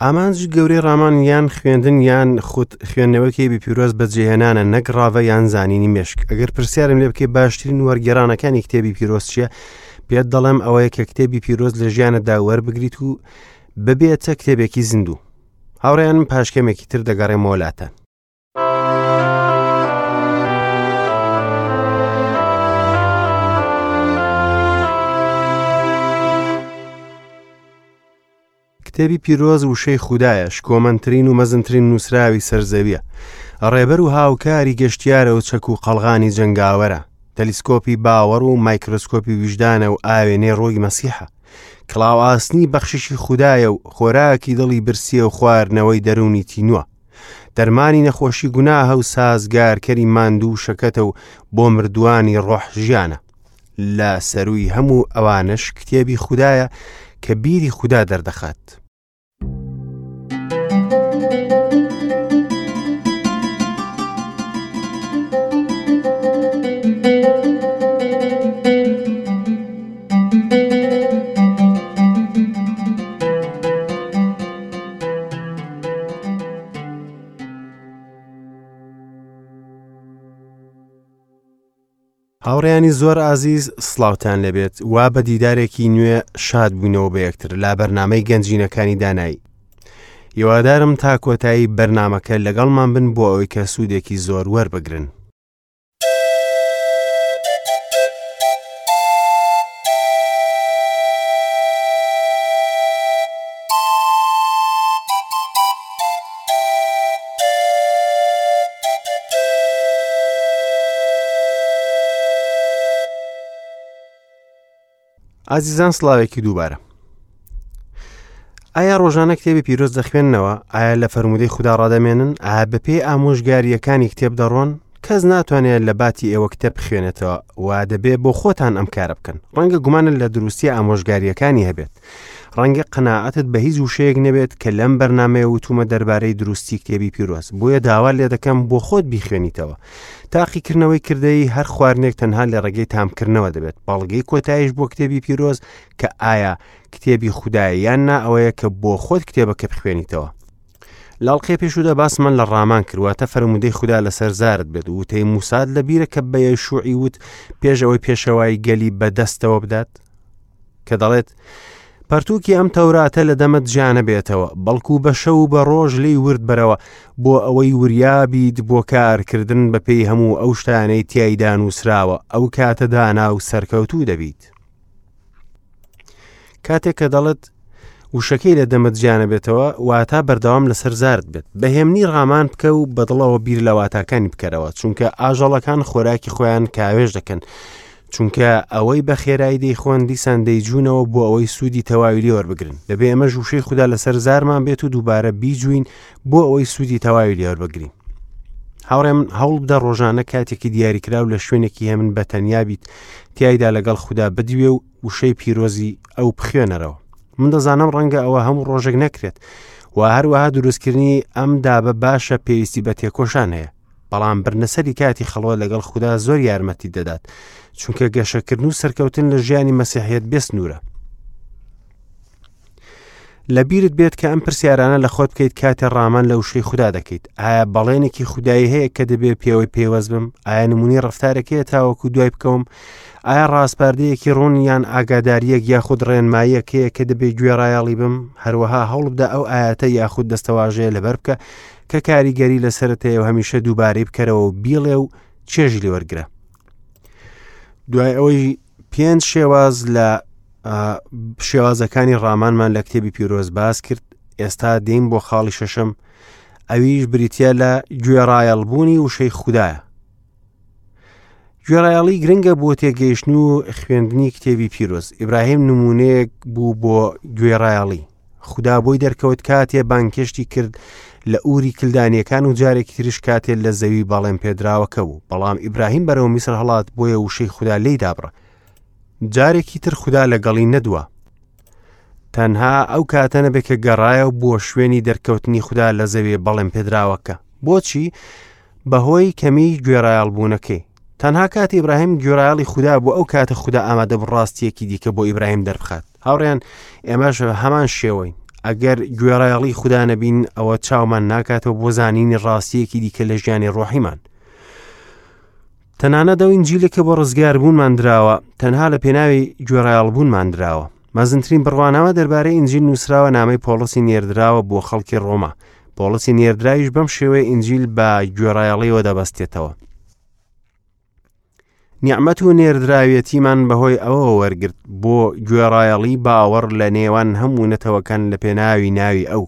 ئامانجی گەورەی ڕامان یان خوێندن یان خود خوێندنەوەی کتێبی پیرۆز بەجێهێنانە نەک ڕاڤە یان زانینی مێشک. ئەگەر پرسیارم لێ بکەی باشترین وەرگێڕانەکانی کتێبی پیرۆز چییە، پێت دەڵێم ئەوەیە کە کتێبی پیرۆز لە ژیانتدا وەربگریت و ببێتە کتێبێکی زیندوو. هاوڕێیانم پاش کەمێکی تر دەگەڕێمەوە لاتان. کتێبی پیرۆز وشەی خودایە، شکۆمەندترین و مەزنترین نووسراوی سەر زەویە. ڕێبەر و هاوکاری گەشتیارە و چەک و قەڵغانی جەنگاوەرە. تەلیسکۆپی باوەڕ و مایکرۆسکۆپی ویژدانە و ئاوێنەی ڕۆی مەسیحە. کڵاو ئاسنی بەخششی خودایە و خۆراکی دڵی برسیە و خواردنەوەی دەروونی تینووە. دەرمانی نەخۆشی گوناهە و سازگارکەری ماندوو و شەکەتە و بۆ مردووانی ڕۆح ژیانە. لە سەرووی هەموو ئەوانەش کتێبی خودایە کە بیری خودا دەردەخات. هاوڕێیانی زۆر ئازیز سڵاوتان لێبێت وا بە دیدارێکی نوێ شاد بووینەوە بە یەکتر لا بەرنامەی گەنجینەکانی دانایی هیوادارم تا کۆتایی بەرنمەکە لەگەڵمان بن بۆ ئەوەی کە سوودێکی زۆر وەربگرن. ئازیزان سڵاوێکی دووبارە ئایا ڕۆژانە کتێبی پیرۆز دەخوێننەوە ئایا لە فەرمودەی خوددا ڕادەمێنن ئایا بەپێی ئامۆژگاریەکانی کتێب دەڕۆن کەس ناتوانێت لە باتی ئێوە کتێب بخوێنێتەوە و دەبێ بۆ خۆتان ئەم کارە بکەن ڕەنگە گومانت لە دروستی ئامۆژگاریەکانی هەبێت ڕەنگە قەناعەتت بە هیچ وشەیەک نەبێت کە لەم بەرنامەیە وتومە دەربارەی دروستی کتێبی پیرۆز بۆیە داوا لێ دەکەم بۆ خۆت بیخوێنیتەوە تاقیکردنەوەی کردەی هەر خواردنێک تەنها لە ڕێگەی تامکردنەوە دەبێت بەڵگەی کۆتایش بۆ کتێبی پیرۆز کە ئایا کتێبی خودایە یان نا ئەوەیە کە بۆ خۆت کتێبەکە بخوێنیتەوە لاڵقەی پێشوودا باسمان لە ڕامان کرد واتە فەرموودەی خودا لەسەر زارت بێت وتەی موساد لە بیرە کە بە یەشوعی وت پێش ئەوەی پێشەوای گەلی بەدەستەوە بدات کە دەڵێت پەرتووکی ئەم تەوراتە لە دەمت جیانە بێتەوە بەڵکو بە شەو و بە ڕۆژ لی ورد بەرەوە بۆ ئەوەی وریابیت بۆ کارکردن بەپێی هەموو ئەو شتانەی تیایدا نووسراوە ئەو کاتە دانا و سەرکەوتوو دەبیت. کاتێک کە دەڵێت وشەکەی لە دەمت جیانەبێتەوە واتا بەردەوام لەسەر زارت بێت بەهێمنی ڕامان بکە و بەدڵەوە بیر لە واتاکانی بکەرەوە چونکە ئاژەڵەکان خۆراکی خۆیان کاوێژ دەکەن چونکە ئەوەی بە خێرایی دەیخۆن دیسان دەیجوونەوە بۆ ئەوەی سوودی تەواوی لێ وەربگرن دەبێ ئێمە وشەی خودا لەسەر زارمان بێت و دووبارە بیجوین بۆ ئەوەی سوودی تەواوی لێ وەربگرین هاوڕێ من هەوڵ بدە ڕۆژانە کاتێکی دیاریکراو لە شوێنێکی هێمن بە تەنیا بیت تیایدا لەگەڵ خودا بدوێ و وشەی پیرۆزی ئەو بخوێنەرەوە من دەزانم ڕەنگە ئەوە هەموو ڕۆژێک نەکرێت و هەروەها دروستکردنی ئەم دابە باشە پێویستی بە تێکۆشان هەیە بەڵام برنەسەری کاتی خەڵوە لەگەڵ خودا زۆر یارمەتی دەدات چونکە گەشەکردن و سەرکەوتن لە ژیانی مەسیحیت بێسنوورە لە بیرت بێت کە ئەم پرسیارانە لە خۆت بکەیت کاتێ ڕامان لە وشەی خودا دەکەیت ئایا بەڵێنێکی خودایی هەیە کە دەبێت پێوەی پەیوەست بم ئایا نمونی ڕفتارێک هەیە تاوەکو دوای بکەوم ئایا ڕاسپاردەیەکی ڕوون یان ئاگاداریەک یاخود ڕێنماییەک هەیە کە دەبێت گوێڕایەڵی بم هەروەها هەوڵ بدە ئەو ئاەتە یاخود دەستەواژەیە لەبەر بکە کە کاریگەری لەسەرت هەیە و هەمیشە دووبارەی بکەرەوە و بیڵێ و چێژی لێوەرگرە دوای ئەوەی پێنج شێواز لە شێوازەکانی ڕامانمان لە کتێبی پیرۆز باس کرد ئێستا دێین بۆ خاڵی شەشەم ئەویش بریتە لە گوێڕایەڵبوونی وشەی خوددایە گوێڕایەڵی گرنگە بۆ تێگەیشتن و خوێندنی کتێبی پیرۆز ئیبراهیم نمونەیەک بوو بۆ گوێڕایەڵی خودا بۆی دەرکەوت کاتێ بانگهێشتی کرد لە ئوری کلدانیەکان و جارێکی تریش کاتێ لە زەوی بەڵێن پێدراوەکە بوو بەڵام ئیبراهیم بەرەو میسر هەڵات بۆیە وشەی خودا لێی دابڕا جارێکی تر خودا لەگەڵی نەدوا تەنها ئەو کاتە نەبێت کە گەڕایەوە بۆ شوێنی دەرکەوتنی خودا لە زەوی بەڵێن پێدراوەکە بۆچی بەهۆی کەمی گوێڕایەڵبوونەکەی تەنها کاتی ئیبراهیم گوێڕایەڵی خودا بوو ئەو کاتە خودا ئامادە بوو ڕاستیەکی دیکە بۆ ئیبراهیم دەربخات هاوڕێیان ئێمەش هەمان شێوەین ئەگەر گوێڕایەڵی خودا نەبین ئەوە چاومان ناکاتەوە بۆ زانینی ڕاستیەکی دیکە لە ژیانی ڕۆحیمان. تەنانەت ئەو ئینجیلە کە بۆ ڕزگاربوونمان دراوە تەنها لە پێناوی گوێڕایەڵبوونمان دراوە. مەزنترین بڕوانامە دەربارەی ئینجیل نووسراوە نامەی پۆڵسی نێردراوە بۆ خەڵکی ڕۆما. پۆڵسی نێردراویش بەم شێوەیە ئینجیل بە گوێڕایەڵیەوە دەبەستێتەوە. نیعمەت و نێردراویەتیمان بەهۆی ئەوەوە وەرگرت بۆ گوێڕایەڵی باوەڕ لە نێوان هەموو نەتەوەکان لە پێناوی ناوی ئەو.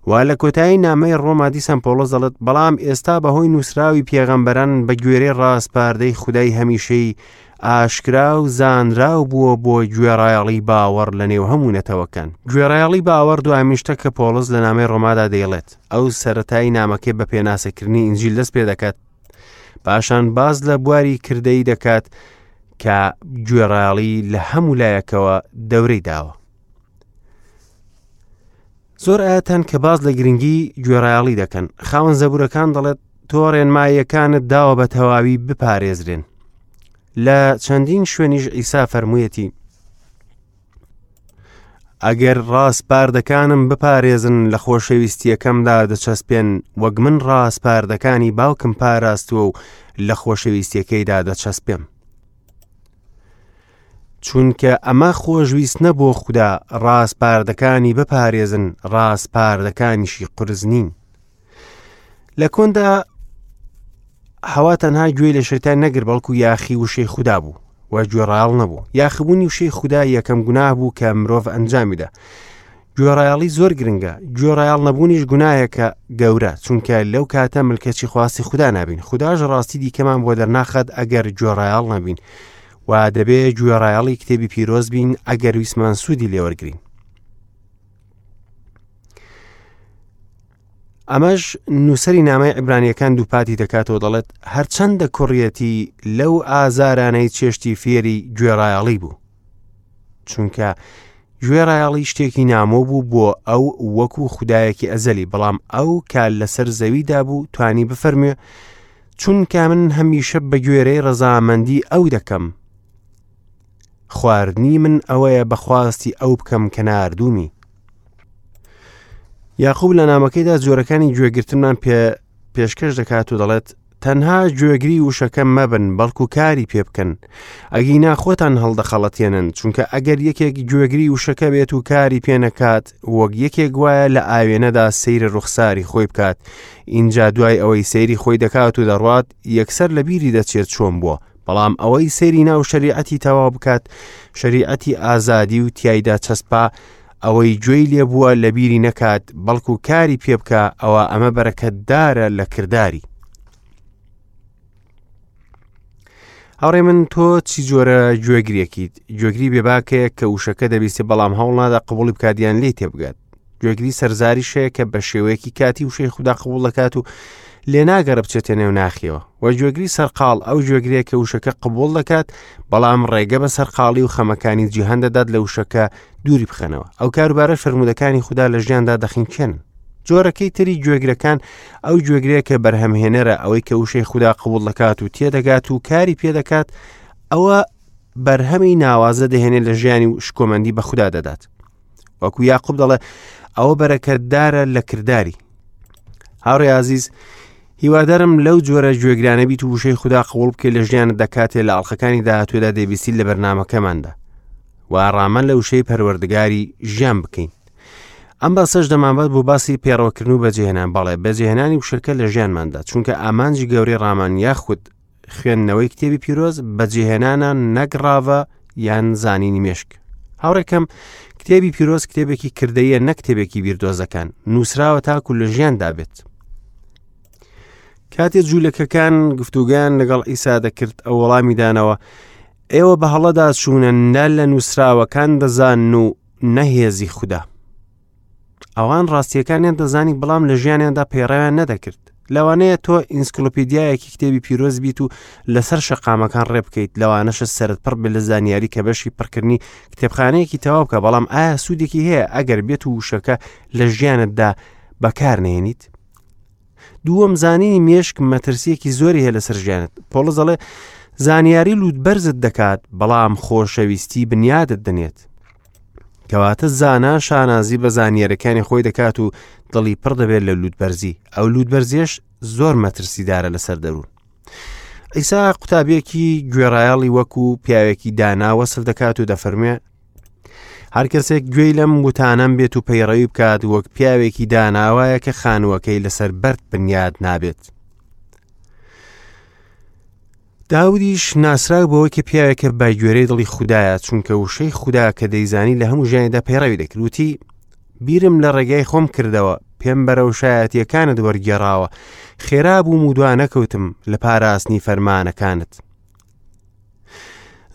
و لە کۆتایی نامەی ڕۆما دیسان پۆڵس دەڵێت بەڵام ئێستا بەهۆی نووسراوی پێغەمبەران بە گوێرەی ڕاسپاردەی خودای هەمیشەی ئاشکرا و زانراو بووە بۆ گوێڕایەڵی باوەڕ لە نێو هەموو نەتەوەکان. گوێڕایەڵی باوەڕ دوامین شتە کە پۆڵس لە نامەی ڕۆمادا دەیڵێت. ئەو سەرەتای نامەکەی بە پێناسەکردنی ئینجیل دەست پێ دەکات، پاشان باس لە بواری کردەیی دەکات کە گوێڕایەڵی لە هەموو لایەکەوە دەورەی داوە. زۆر ئاەتەن کە باز لە گرنگی گوێڕایەڵی دەکەن خاوەن زەبورەکان دەڵێت تۆ ڕێنماییەکانت داوە بە تەواوی بپارێزرێن لە چەندین شوێنیش ئیسا فەرموویەتی ئەگەر ڕاسپاردەکانم بپارێزن لە خۆشەویستیەکەمدا دەچەسپێن وەک من ڕاسپاردەکانی باوکم پاراستووە و لە خۆشەویستیەکەیدا دەچەسپێم چونکە ئەمە خۆشویستنە بۆ خودا ڕاسپاردەکانی بپارێزن ڕاسپاردەکانیشی قورس نین لە کۆندا هەوا تەنها گوێی لە شەیتان نەگر بەڵکو یاخی وشەی خودا بوو و گوێڕایەڵ نەبوو یاخبوونی وشەی خودا یەکەم گوناه بوو کە مرۆڤ ئەنجامیدا گوێڕایەڵی زۆر گرنگە گوێڕایەڵ نەبوونیش گوناهێکە گەورە چونکە لەو کاتە ملکەچی خواستی خودا نابین خودداش ڕاستی دیکەمان بۆ دەرناخات ئەگەر گوێڕایەڵ نەبین و دەبێ گوێڕایەڵی کتێبی پیرۆز بین ئەگەر ویسمان سوودی لێوەرگین ئەمەش نووسەری نامەی عیبرانیەکان دووپاتی دەکاتەوە دەڵێت هەرچەندە کوڕیەتی لەو ئازارانەی چێشتی فێری گوێڕایەڵی بوو چونکە گوێڕایەڵی شتێکی نامۆ بوو بۆ ئەو وەکو خودایەکی ئەزەلی بەڵام ئەو کە لەسەر زەویدا بوو توانی بفەرموێ چونکە من هەمیشە بە گوێرەی ڕەزامەندی ئەو دەکەم خواردنی من ئەوەیە بەخواستی ئەو بکەم کە ناردوومی یاقوب لە نامەکەیدا جۆرەکانی گوێگرتنمان پێ پێشکەش دەکات و دەڵێت تەنها گوێگری وشەکە مەبن بەڵکو کاری پێ بکەن ئەگینا خۆتان هەڵدەخەڵەتێنن چونکە ئەگەر یەکێک گوێگری وشەکە بێت و کاری پێ نەکات وەک یەکێک وایە لە ئاوێنەدا سەیری ڕوخساری خۆی بکات ئینجا دوای ئەوەی سەیری خۆی دەکات و دەڕوات یەکسەر لە بیری دەچێت چۆن بووە بەڵام ئەوەی سەیری ناو شەریعەتی تەواو بکات شەریعەتی ئازادی و تیایدا چەسپا ئەوەی گوێی لێبووە لە بیری نەکات بەڵکو کاری پێ بکە ئەوە ئەمە بەرەکەتدارە لە کرداری هاوڕێ من تۆ چی جۆرە گوێگرێکیت گوێگری بێباکەیە کە وشەکە دەبیستێ بەڵام هەوڵ نادا قبولی بکات یان لێی تێبگات گوێگری سەرزاریش هەیە کە بە شێوەیەکی کاتی وشەی خودا قبوڵ دەکات و لێ ناگەڕ بچێتە نێو ناخیەوە و گوێگری سەرقاڵ ئەو گوێگرەیە کە وشەکە قبوڵ دەکات بەڵام ڕێگە بە سەرقاڵی و خەمەکانی جیهان دەدات لە وشەکە دووری بخەنەوە ئەو کاروبارە فەرموودەکانی خودا لە ژیاندا دەخینکێن جۆرەکەی تری گوێگرەکان ئەو گوێگرەیە کە بەرهەمهێنەرە ئەوەی کە وشەی خودا قبوڵ دەکات و تێدەگات و کاری پێدەکات ئەوە بەرهەمی ناوازە دەهێنێت لە ژیانی و شکۆمەندی بە خودا دەدات وەکو یاقوب دەڵێ ئەوە بەرەکەتدارە لە کرداری هاوڕێ ئازیز هیوادارم لەو جۆرە گوێگرانە بیت و وشەی خودا قوڵ بکەیت لە ژیانت دەکاتێ لە ئەڵلقەکانی داهاتوێدا دەبیستی لە بەرنمەکەماندا و ڕامان لە وشەی پەروەردگاری ژیان بکەین ئەم باسەش دەمانبات بۆ باسی پێڕەوکردن و بەجێهێنان بەڵێ بەجێهێنانی وشەکە لە ژیانماندا چونکە ئامانجی گەورەی ڕامان یاخود خوێندنەوەی کتێبی پیرۆز بەجێهێنانە نەک ڕاڤە یان زانینی مێشک هاوڕێکەم کتێبی پیرۆز کتێبێکی کردەیە نەک کتێبێکی بیردۆزەکان نووسراوە تاکو لە ژیاندا بێت کاتێ جوولەکەکان گفتوگەیان لەگەڵ ئیسا دەکرد ئەو وەڵامی دانەوە ئێوە بە هەڵەدا چوونە نە لە نووسراوەکان دەزان و نەهێزی خودا ئەوان ڕاستیەکانیان دەزانی بەڵام لە ژیانیاندا پەیڕەویان نەدەکرد لەوانەیە تۆ ئینسکلۆپیدیایەکی کتێبی پیرۆز بیت و لەسەر شەقامەکان ڕێ بکەیت لەوانەشە سەرت پڕ بێت لە زانیاری کە بەشی پڕکردنی کتێبخانەیەکی تەواو بکە بەڵام ئایا سوودێکی هەیە ئەگەر بێت و وشەکە لە ژیانتدا بەکار نێنیت دووەم زانینی مێشک مەترسیەکی زۆری هەیە لەسەر ژیانت پۆڵس دەڵێ زانیاری لووت بەرزت دەکات بەڵام خۆشەویستی بنیادت دەنێت. کەواتە زانا شانازی بە زانیارەکانی خۆی دەکات و دڵی پڕ دەبێت لە لووتبەرزی، ئەو لووتبەرزیەش زۆر مەترسیدارە لەسەر دەروون. عیسا قوتابیەکی گوێڕایەڵی وەکو پیاوێکی دانا وەسف دەکات و دەفەرموێ هەر کەسێک گوێی لەم وتانەم بێت و پەیڕەوی بکات وەک پیاوێکی داناوایە کە خانووەکەی لەسەر بەرد بنیاد نابێت. داودیش ناسراو بەوەی کە پیاوێکە بە گوێرەی دڵی خودایە چونکە وشەی خودا کە دەیزانی لە هەموو ژیانیدا پەیڕەوی دەکرد وتی بیرم لە ڕێگای خۆم کردەوە پێم بەرەو شایەتیەکانت وەرگێڕاوە خێرا بووم و دوا نەکەوتم لە پاراستنی فەرمانەکانت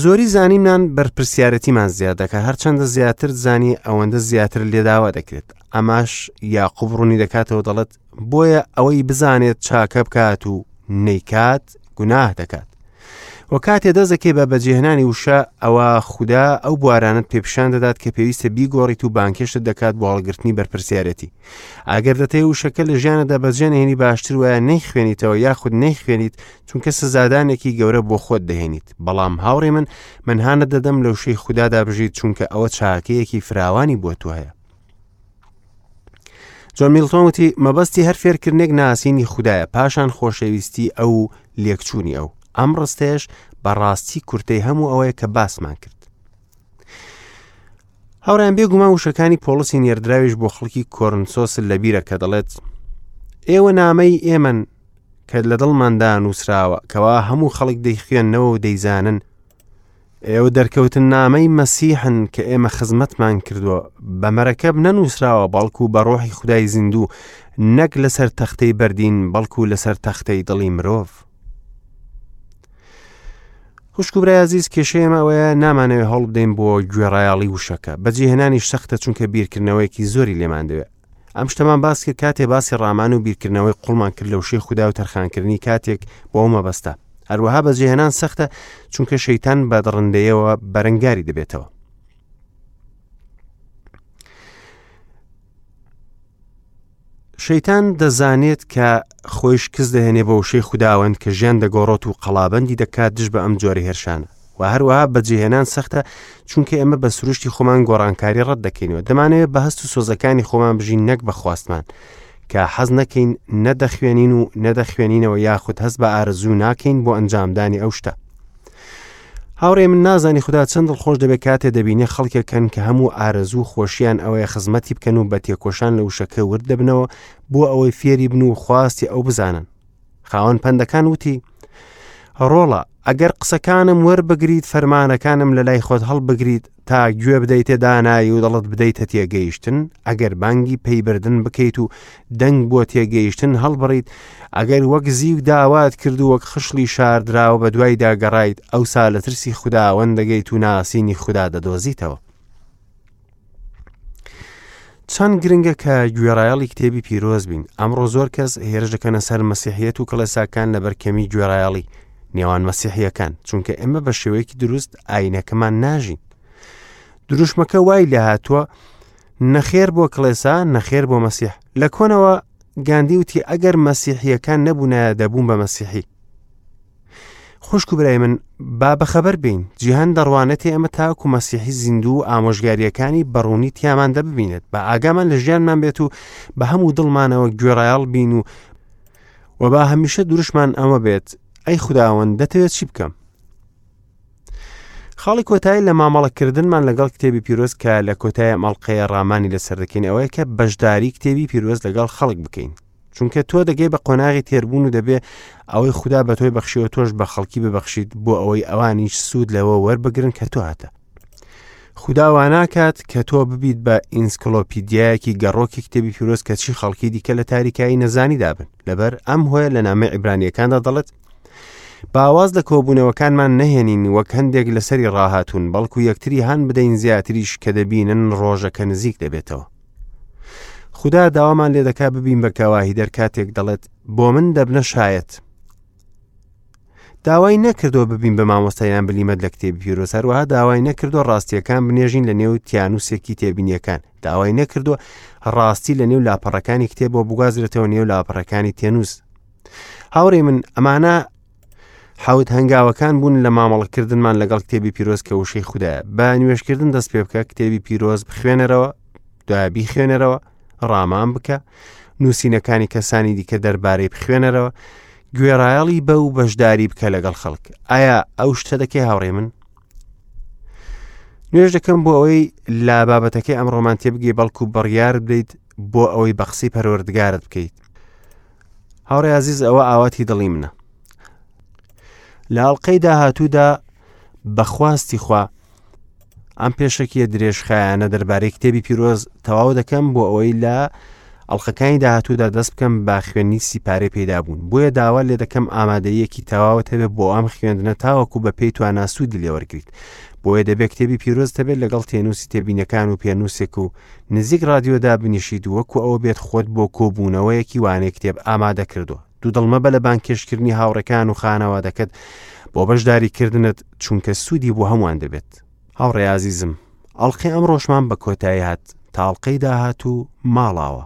زۆری زانیمان بەرپرسیارەتیمان زیاد دەکات هەرچەندە زیاتر زانی ئەوەندە زیاتر لێداوا دەکرێت ئەماش یاقوب ڕوونی دەکاتەوە دەڵێت بۆیە ئەوەی بزانێت چاکە بکات و نەیکات گوناه دەکات و کاتێ دەستەکەی بە بەجێهێنانی وشە ئەوە خودا ئەو بوارانت پێپشان دەدات کە پێویستە بیگۆڕیت و بانکێشت دەکات بۆ هەڵگرتنی بەرپرسیارەتی ئەگەر دەتەوێت وشەکە لە ژیانەدا بەجێنهێنی باشتر وایە نەیخوێنیتەوە یاخود نەیخوێنیت چونکە سزادانێکی گەورە بۆ خۆت دەهێنیت بەڵام هاوڕێ من من هانت دەدەم لە وشەی خودادا بژیت چونکە ئەوە چاکەیەکی فراوانی بۆ تۆ هەیە جۆن میلتۆن وتی مەبەستی هەر فێرکردنێک ناسینی خودایە پاشان خۆشەویستی ئەو و لێکچوونی ئەو ئەم ڕستەیەش بەڕاستی کورتەی هەموو ئەوەیە کە باسمان کرد هاوڕیان بێگومان وشەکانی پۆڵسی نێردراویش بۆ خەڵکی کۆرنسۆس لەبیرە کە دەڵێت ئێوە نامەی ئێمەن کە لە دڵماندا نووسراوە کەوا هەموو خەڵک دەیخوێنەوە و دەیزانن ئێوە دەرکەوتننامەی مەسیحن کە ئێمە خزمەتمان کردووە، بە مەرەکەب نەنووسراوە بەڵکو بە ڕۆحی خودای زیندوو، نەک لەسەر تەختەی بەردین بەڵکو لەسەر تەختەی دڵی مرۆڤ. خوشک و برای ئازیز کێشەی ئێمە ئەوەیە نامانەوێت هەوڵ بدەین بۆ گوێڕایەڵی وشەکە بەجێهێنانی سەختە چونکە بیرکردنەوەیەکی زۆری لێمان دەوێت ئەم شتەمان باس کرد کاتێ باسی ڕامان و بیرکردنەوەی قوڵمان کرد لە وشەی خودا و تەرخانکردنی کاتێک بۆ ئەو مەبەستە هەروەها بەجێهێنان سەختە چونکە شەیتان بە دڕندەیەوە بەرەنگاری دەبێتەوە شەیتان دەزانێت کە خۆی شکست دەهێنێ بە وشەی خوداوەند کە ژیان دەگۆڕێت و قەڵابەندی دەکات دژ بە ئەم جۆرە هێرشانە و هەروەها بەجێهێنان سەختە چونکە ئێمە بە سروشتی خۆمان گۆڕانکاری ڕەت دەکەینەوە دەمانەوێت بە هەست و سۆزەکانی خۆمان بژین نەک بە خواستمان کە حەز نەکەین نەدەخوێنین و نەدەخوێنینەوە یاخود هەست بە ئارەزوو ناکەین بۆ ئەنجامدانی ئەو شتە هاوڕێ من نازانی خودا چەند دڵخۆش دەبێت کاتێ دەبینێ خەڵکێکن کە هەموو ئارەزوو خۆشیان ئەوەیە خزمەتی بکەن و بە تێکۆشان لە وشەکە ورد دەبنەوە بۆ ئەوەی فێری بن و خواستی ئەو بزانن خاوەن پەندەکان وتی ڕۆڵە ئەگەر قسەکانم وەربگریت فەرمانەکانم لە لای خۆت هەڵبگریت تا گوێ بدەیتە دانایی و دڵت بدەیتە تێگەیشتن ئەگەر بانگی پەیبردن بکەیت و دەنگ بۆ تێگەیشتن هەڵبڕیت ئەگەر وەک زیو داوات کرد و وەک خشڵی شاردراوە بە دوایدا گەڕایت ئەوسا لە ترسی خوداوەند دەگەیت و ناسینی خودا دەدۆزیتەوە چەند گرنگە کە گوێڕایەڵی کتێبی پیرۆز بین ئەمڕۆ زۆر کەس هێرش دەکەنە سەر مەسیحیەت و کڵێساکان لەبەر کەمی گوێڕایەڵی نێوان مەسیحیەکان چونکە ئێمە بە شێوەیەکی دروست ئاینەکەمان ناژین دروشمەکە وای لە هاتووە نەخێر بۆ کڵێسا نەخێر بۆ مەسیح لە کۆنەوە گاندی وتی ئەگەر مەسیحیەکان نەبوونایە دەبوون بە مەسیحی خوشک و برای من با بەخەبەر بین جیهان دەڕوانێتێ ئەمە تاکو مەسیحی زیندوو و ئامۆژگاریەکانی بەڕوونی تیامان دەببینێت بە ئاگامان لە ژیانمان بێت و بە هەموو دڵمانەوە گوێڕایەڵ بین و و با هەمیشە دروشمان ئەمە بێت ئەی خوداوەند دەتەوێت چی بکەم خاڵی کۆتایی لە مامەڵەکردنمان لەگەڵ کتێبی پیرۆز کە لە کۆتای ئەم ئەڵقەیە ڕامانی لەسەر دەکەین ئەوەیە کە بەشداری کتێبی پیرۆز لەگەڵ خەڵک بکەین چونکە تۆ دەگەی بە قۆناغی تێربوون و دەبێ ئەوەی خودا بە تۆی بەخشیەوە تۆش بە خەڵکی ببەخشیت بۆ ئەوەی ئەوانیش سوود لەوە وەربگرن کە تۆ هاتە خودا واناکات کە تۆ ببیت بە ئینسکلۆپیدیایەکی گەڕۆکی کتێبی پیرۆز کە چی خەڵکی دیکە لە تاریکایی نەزانیدا بن لەبەر ئەم هۆیە لە نامەی عیبرانیەکاندا دەڵێت باواز لە کۆبوونەوەکانمان نەهێنین وەک هەندێک لەسەری ڕاهاتوون بەڵکو یەکتری هان بدەین زیاتریش کە دەبینن ڕۆژەکە نزیک دەبێتەوە خودا داوامان لێ دەکا ببین بە گەواهیدەر کاتێک دەڵێت بۆ من دەبنە شایەت داوای نەکردووە ببین بە مامۆستایان بلیمەت لە کتێبی پیرۆز هەروەها داوای نەکردووە ڕاستیەکان بنێژین لە نێو تیانوسێکی تێبینیەکان داوای نەکردووە ڕاستی لە نێو لاپەڕەکانی کتێبەوە بگوازرێتەوە نێو لاپەڕەکانی تێنووس هاوڕێ من ئەمانە حەوت هەنگاوەکان بوون لە مامەڵەکردنمان لەگەڵ کتێبی پیرۆز کە وشەی خودایە. بە نوێژکردن دەست پێ بکە، کتێبی پیرۆز بخوێنەرەوە، دوای بیخوێنەرەوە، ڕامان بکە، نووسینەکانی کەسانی دیکە دەربارەی بخوێنەرەوە، گوێڕایەڵی بە و بەشداری بکە لەگەڵ خەڵک. ئایا ئەو شتە دەکەی هاوڕێ من؟ نوێژ دەکەم بۆ ئەوەی لە بابەتەکەی ئەمڕۆمان تێبگەی بەڵکو بڕیار بدەیت بۆ ئەوەی بە قسەی پەروەردگارت بکەیت. هاوڕێ ئازیز ئەوە ئاواتی دڵی منە. لە ئەڵقەی داهاتوودا بەخواستی خوا ئەم پێشەکیە درێژخایانە دەربارەی کتێبی پیرۆز تەواو دەکەم بۆ ئەوەی لە ئەڵلقەکانی داهاتوودا دەست بکەم بە خوێندنی سیپارەی پەیدابوون بۆیە داوا لێ دەکەم ئامادەیەکی تەواوت هەبێت بۆ ئەم خوێندنە تاوەکو بە پێی توانا سوودی لێوەرگریت بۆیە دەبێت کتێبی پیرۆز هەبێت لەگەڵ تێنووسی تێبینەکان و پێنووسێک و نزیک ڕادیۆدا بنیشیت وەکو ئەوە بێت خۆت بۆ کۆبوونەوەیەکی وانەی کتێب ئامادە کردووە دوودڵ مەبە لە بانگهێشتکردنی هاوڕێکان و خانەوادەکەت بۆ بەشداریکردنت چونکە سوودی بۆ هەمووان دەبێت. هاوڕێ ئازیزم، ئەڵقەی ئەمڕۆشمان بە کۆتایی هات، تا ئەڵقەی داهاتوو ماڵاوا.